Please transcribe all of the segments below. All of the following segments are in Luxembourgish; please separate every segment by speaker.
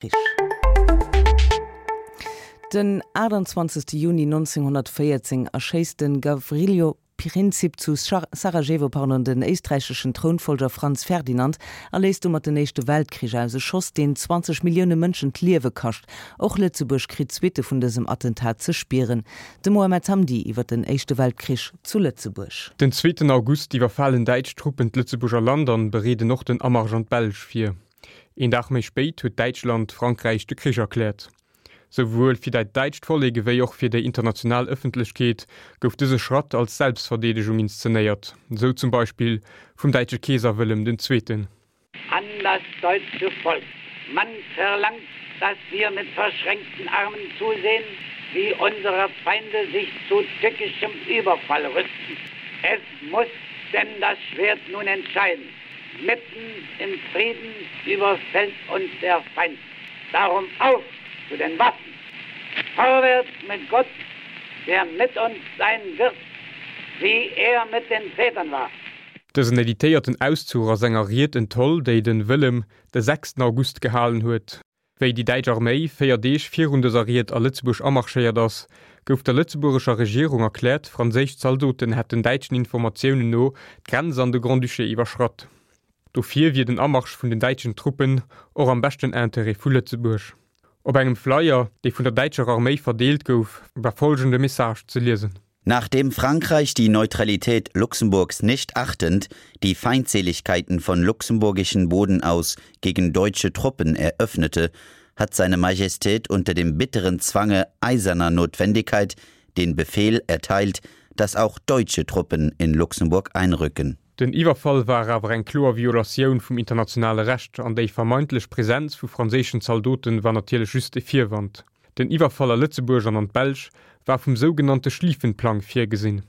Speaker 1: Krich. Den 28 Juni 1914 erschéisst de Gavrilo Princip zu Sarajevo pardon, den éisträicheschen Trounfollger Franz Ferdinand a léist domat den Éischte Weltkrich aus, e Schoss, deen 20 Millioune Mënschen d'Liewe kascht. Och Lëtzebuerg kritt d'Suitte vun dësem Attentat ze spieren. De Mohamed Hamdi iwwer den Éischte Weltkrich zu Lëtzebuerg.
Speaker 2: Den zweeten August iwwerfalen däitsch Truppen d'Lëtzebuerger Land an bereeden och den Amarsch an d'Belsch vir. Een Dag méi spéit huet Däitschland Frankräich de Krich erkläert. Souwuel fir dat däitscht Vollek ewéi och fir déi international Ëffentlechkeet gouf dëse Schratt als Selbstverdeedegung inszenéiert, sou zum Beispill vum däitsche Keeser Wëllem den Zweeten.
Speaker 3: An das deutsche Volk. Man verlangt, dass wir mit verschränkten Armen zusehen, wie unsere Feinde sich zu tückischem Überfall rüsten. Es muss denn das Schwert nun entscheiden. Mitten im Frieden überfällt uns der Feind. Darum auf zu den Waffen! Vorwärts mit Gott, der mit uns sein wird, wie er mit den Vätern war.
Speaker 2: Dësen editéierten Auszuch ass enger Ried entholl, déi den Wëllem de sechsten August gehalen huet. Wéi déi däitsch Arméi 4 Deeg virun dëser Ried a Lëtzebuerg amarschéiert ass, gouf der lëtzebuergescher Regierung erkläert, franséisch Zaldoten hätten däitschen Informatiounen no d'Grenz an de Grand-Duché iwwerschratt. Dofir wier den Amarsch vun den däitschen Truppen och am beschten Interêt vu Lëtzebuerg. Op engem Flyer, dee vun der däitscher Arméi verdeelt gouf, war follgende Message ze liesen.
Speaker 4: Nachdem Frankreich die Neutralität Luxemburgs nicht achtend die Feindseligkeiten von luxemburgischen Boden aus gegen deutsche Truppen eröffnete, hat seine Majestät unter dem bitteren Zwange eiserner Notwendigkeit den Befehl erteilt, dass auch deutsche Truppen in Luxemburg einrücken.
Speaker 2: Den Iwwerfall war awer eng kloer Violatioun vum internationale Recht an déi vermeintlech Presenz vu franséischen Zaldoten war natierlech just e Virwand. Den Iwwerfall a Lëtzebuerg an an d'Belsch war vum sougenannte Schlieffenplang virgesinn.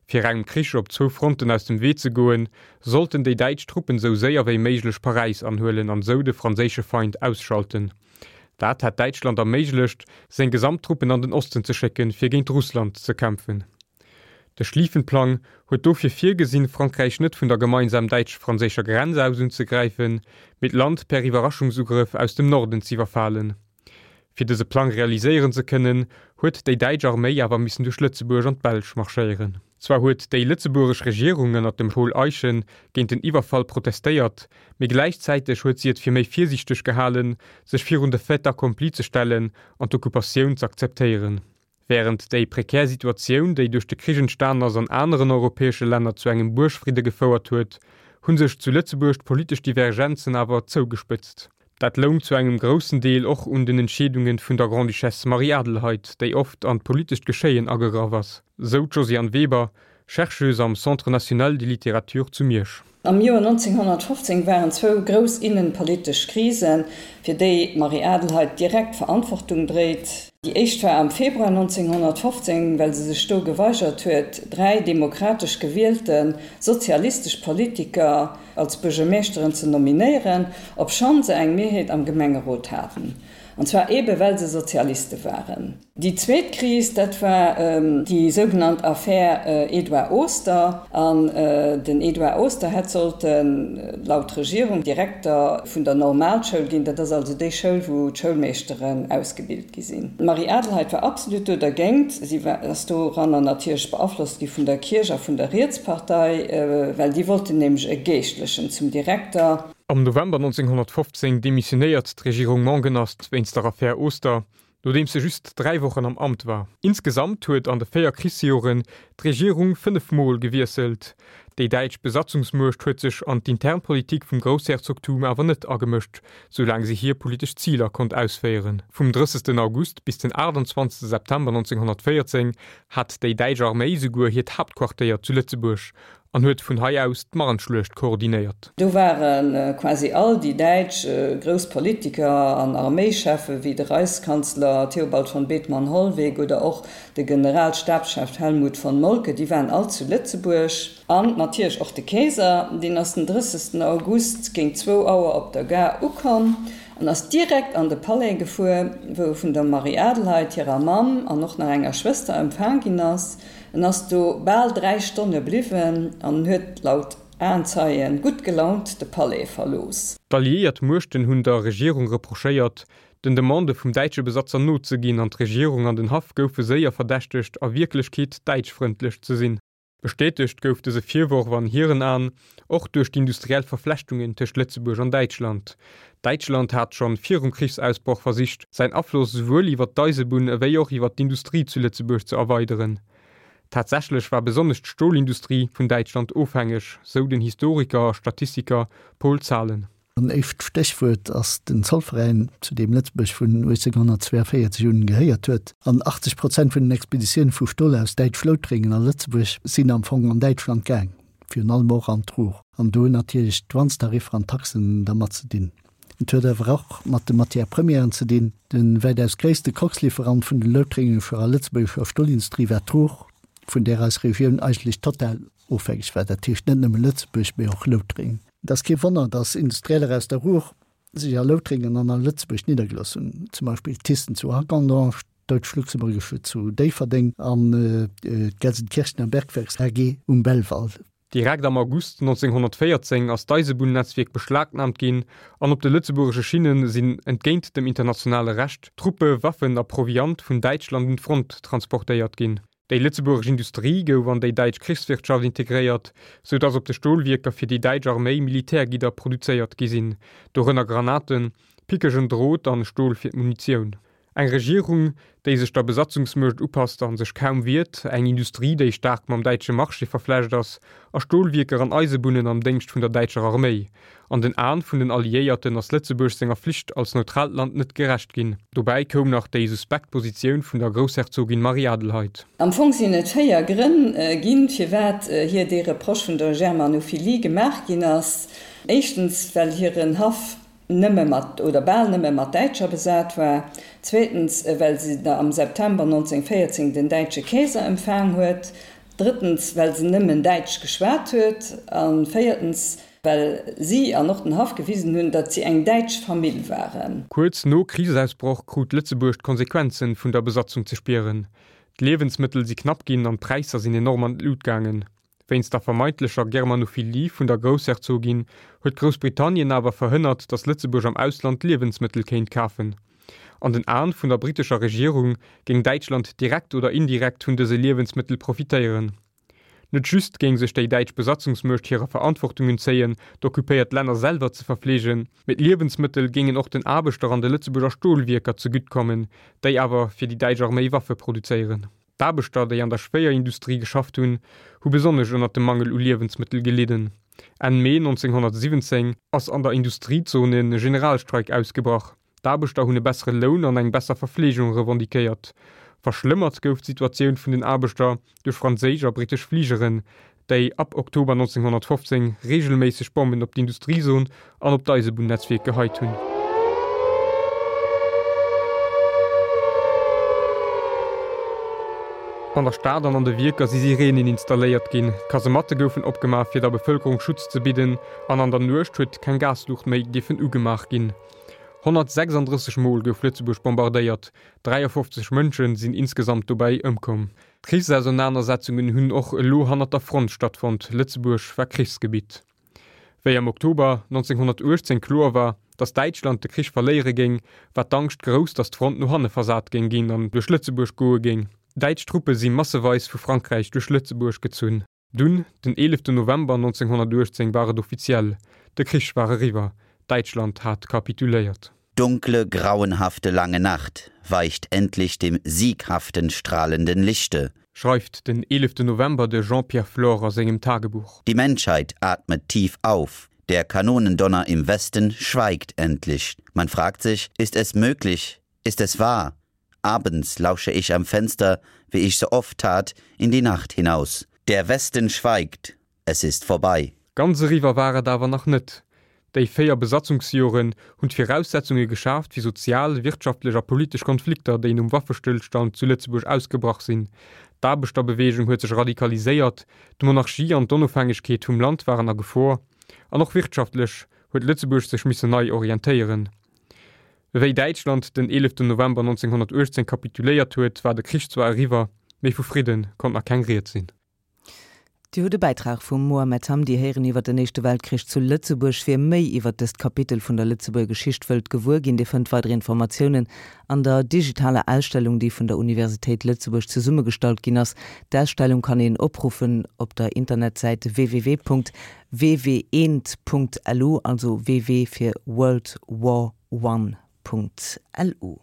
Speaker 2: Fir engem Krich op zwou Fronten aus dem Wee ze goen, sollten déi däitsch Truppen sou séier wéi méiglech Paräis anhuelen an sou de franséische Feind ausschalten. Dat hätt Däitschland erméiglecht, seng gesamt Truppen an den Osten ze schécken, fir géint Russland ze kämpfen. De Schlieffenplang huet dofir virgesinn, Frankräich net vun der gemeinsam däitsch-franséischer Grenz aus unzegräifen, mee d'Land per Iwwerraschungsugrëff aus dem Norden z'iwwerfalen. Fir dëse Plang realiséieren ze kënnen, huet déi däitsch Arméi awer missen duerch Lëtzebuerg an d'Belsch marschéieren. Zwar huet déi lëtzebuergesch Regierung ënner dem Paul Eyschen géint den Iwwerfall protestéiert, mee gläichzäiteg huet si et fir méi virsiichteg gehalen, sech virun de Fait accompli ze stellen an d'Occupatioun z'akzeptéieren. Wärend déi prekär Situatioun, déi duerch de Krich entstan ass, an aneren europäesche Länner zu engem Buergfridde gefouert huet, hu sech zu Lëtzebuerg d'politesch Divergenzen awer zougespëtzt. Dat loung zu engem groussen Deel och un den Entscheedunge vun der Grande-Duchesse Marie-Adelheid, déi oft an d'politescht Geschéien agegraff ass, sou d'Josiane Weber, Chercheuse am Centre national de littérature zu Miersch.
Speaker 5: Am Joer 1915 waren zwou grouss innenpolitesch Krisen, fir déi d'Marie-Adelheid direkt d'Verantwortung dréit. Déi éischt war am Februar 1915, well se sech do geweigert huet, dräi demokratesch gewielte sozialistesch Politiker als Buergermeeschteren ze nominéieren, obschonn se eng Mehrheet am Gemengerot haten, an zwar eebe well se Sozialiste waren. Déi zweet Kris, dat war déi sougenannt Affär Edouard Oster. An den Edouard Oster hätt sollten, laut Regierung, Direkter vun der Normalschoul ginn. Dat ass also déi Schoul, wou d'Schoulmeeschteren ausgebilt gi sinn. D'Marie-Adelheid war absolut do dergéint. Si ass doranner natierlech beaflosst gi vun der Kierch a vun der Rietspartei, well déi wollten nämlech e Geeschtlechen zum Direkter.
Speaker 2: Am November 1915 demissionéiert d'Regierung Mongenast wéinst der Affär Oster nodeems se just 3 Wochen am Amt war. Insgesamt huet an de 4 Krichsjoren d'Regierung 5 Mol gewiesselt. Déi däitsch Besatzungsmuecht huet sech an d'intern Politik vum Groussherzogtum awer net agemëscht, soulaang se hir politesch Ziler konnt ausféieren. Vum 30. August bis den 28. September 1914 hat déi däitsch Arméi souguer hiert Haaptquartéier zu Lëtzebuerg an huet vun hei aus d'Marnschluecht koordinéiert.
Speaker 5: Do ware quasi all déi däitsch grouss Politiker an Arméischeffen, wéi de Reichskanzler Theobald von Bethmann Hollweg oder och de Generalstabschef Helmuth von Moltke, déi waren all zu Lëtzebuerg. An natierlech och de Keeser, deen ass den 30. August géint zwou Auer op der Gare ukomm an ass direkt an de Palais gefuer, wou e vun der Marie-Adelheid, hirer Mamm an och nach enger Schwëster empfaang ginn ass. En ass do bal 3 Stonne bliwwen an huet laut Aenzeien gutt gelaunt de Palais verlooss.
Speaker 2: D'alliéiert Muechten hunn der Regierung reprochéiert, den Demandë vum däitsche Besatzer nozeginn an d'Regierung an den Haff goufe séier verdächtegt, a Wierklechkeet däitschfrëndlech ze sinn. Bestätegt gouf dëse Virworf an hiren Aen och duerch d'industriell Verflechtungen tëscht Lëtzebuerg an Däitschland. Däitschland hat schonn virum Krichsausbroch versicht, säin Afloss esouwuel iwwer d'Eisebunn ewéi och iwwer d'Industrie zu Lëtzebuerg ze erweideren. Tatsächlech war besonnesch d'Stolindustrie vun Däitschland ofhängeg, sou den Historiker a Statistiker Paul Zahlen.
Speaker 6: En éischt Stéchwuert ass den Zollveräin, zu deem Lëtzebuerg vun 1842 un gehéiert huet. An 80 Prozent vun den Expeditioune vu Stol aus Däitsch-Loutrengen a Lëtzebuerg sinn am Fong an Däitschland gaang, virun allem och an d'Ruhr. An do hunn natierlech d'Douanestariffer an d'Taxen dermat ze dinn. Et huet awer och mat de Matières premièren ze dinn. De wäitaus gréisste Koxlieferant vun den loutréngescher a lëtzebuergescher Stolindustrie war d'Ruhr, vun där eis Regioun eigentlech total ofhängeg war, dat heescht net nëmme Lëtzebuerg, mee och Loutrengen. Et ass kee Wonner, datt Industrieller aus der Ruhr sech a Loutrengen an a Lëtzebuerg niddergelooss hunn, zum Beispill Thyssen zu Hagondange, d'Deutsch-Luxemburgische zu Déifferdeng an d'Gelsenkirchener Bergwerks AG um Belval.
Speaker 2: Direkt am August 1914 ass d'Eisebunn-Netzwierk beschlagnaamt ginn an op de lëtzebuergesche Schinne sinn, entgéint dem internationale Recht, Truppe, Waffen a Proviant vun Däitschland un d'Front transportéiert ginn. Déi lëtzebuergesch Industrie gouf an déi däitsch Krichswirtschaft integréiert, sou datt op de Stolwierker fir déi däitsch Arméi Militärgidder produzéiert gi sinn, dorënner Granaten, pickegen Drot an Stol fir d'Munitioun. Eng Regierung, déi sech der Besatzungsmuecht upasst a sech kaum wiert, eng Industrie, déi staark mam däitsche Marché verflecht ass, a Stolwierker an Eisebunnen am Déngscht vun der däitscher Arméi. An den Aen vun den Alliéierten ass Lëtzebuerg senger Flicht als neutraalt Land net gerecht ginn. Dobäi koum nach déi suspekt Positioun vun der Groussherzogin Marie-Adelheid.
Speaker 5: Am Fong sinn et 4 Grënn ginn, firwat hir dee Reproche vun der Germanophilie gemaach ginn ass. Éischtens, well hiren Haff nëmme mat, oder bal nëmme mat Däitscher besat war, zweetens, well se am September 1914 den däitsche Keeser empfaang huet, drëttens, well se nëmmen Däitsch geschwat huet, a véiertens, well si an och den Haff gewisen hunn, datt si eng däitsch Famill waren.
Speaker 2: Kuerz no Krichsausbroch krut Lëtzebuerg d'Konsequenzen vun der Besatzung ze spieren. D'Liewensmëttel si knapp ginn an d'Präisser sinn enorm an d'Lut gaangen. Wéinst der vermeintlecher Germanophilie vun der Groussherzogin huet Groussbritannien awer verhënnert, datt Lëtzebuerg am Ausland Liewensmëttel kéint kafen. An den Aen vun der brittescher Regierung géing Däitschland direkt oder indirekt vun dëse Liewensmëttel profitéieren. Net just géing sech déi däitsch Besatzungsmuecht hirer Verantwortung entzéien, d'occupéiert Länner selwer ze verfleegen, mee d'Liewensmëttel géingen och den Aarbechter an de Lëtzebuerger Stolwierker zegutt kommen, déi awer fir déi däitsch Arméi Waffe produzéieren. D'Aarbechter, déi an der Schwéierindustrie geschafft hunn, hu besonnesch ënnert dem Mangel u Liewensmëttel gelidden. Enn Mee 1917 ass an der Industriezone e Generalstreik ausgebrach. D'Aarbechter hunn e bessere Loun an eng besser Verfleegung revendiquéiert. Verschlëmmert gouf d'Situatioun vun den Aarbechter duerch franséisch a brittesch Fligeren, déi ab Oktober 1915 reegelméisseg Bommen op d'Industriezon an op d'Eisebunnetzwierk geheit hunn. An der Stad an an de Wierker si Sireenen installéiert ginn, Kasematte goufen opgemaach fir der Bevëlkerung Schutz ze bidden an an der Nuecht huet keng Gasluucht méi dierfen ugemaach ginn. 136 Mol gouf Lëtzebuerg bombardéiert, 53 Mënsche sinn insgesamt dobäi ëmkomm. D'Krichsausernanersetzungen hunn och elo hannert der Front stattfonnt, Lëtzebuerg war Krichsgebitt. Wéi am Oktober 1918 kloer war, datt Däitschland de Krich verléiere géing, war d'Angscht grouss, datt d'Front no hanne versat géing ginn an duerch Lëtzebuerg goe géing. Däitsch Truppe si masseweis vu Frankräich duerch Lëtzebuerg gezunn. Dunn, den 11 November 1918 war et offiziell, de Krich war eriwwer, Däitschland hat kapituléiert.
Speaker 4: Dunkle, grauenhafte lange Nacht weicht endlich dem sieghaften strahlenden Lichte.
Speaker 2: Schreift den 11 November de Jean-Pierre Flore a sengem Tagebuch.
Speaker 4: Die Menschheit atmet tief auf. Der Kanonendonner im Westen schweigt endlich. Man fragt sich, ist es möglich, ist es wahr? Abends lausche ich am Fenster, wie ich so oft tat, in die Nacht hinaus. Der Westen schweigt, es ist vorbei.
Speaker 2: Ganz eriwwer war et awer nach net. Déi 4 Besatzungsjoren hunn d'Viraussetzunge geschaaft fir sozial, wirtschaftlech a politesch Konflikter, déi nom Waffestëllstand zu Lëtzebuerg ausgebrach sinn. D'Aarbechterbeweegung huet sech radikaliséiert, d'Monarchie an d'Onofhängegkeet vum Land waren a Gefor, an och wirtschaftlech huet Lëtzebuerg sech missen nei orientéieren. Wéi Däitschland den 11 November 1918 kapituléiert huet, war de Krich zwar eriwwer, mee vu Fridde konnt nach keng Ried sinn.
Speaker 1: Dir hutt e Bäitrag vum Mohamed Hamdi héieren iwwer den Éischte Weltkrich zu Lëtzebuerg. Wie méi iwwer dëst Kapitel vun der Lëtzebuerger Geschicht wëllt gewuer ginn, dee fënnt weider Informatiounen an der digitaler Ausstellung, déi vun der Universitéit Lëtzebuerg zesummegestallt ginn ass. D'Ausstellung kann een opruffen op der Internetsäit www.ww1.lu, also ww fir World War One. Lu.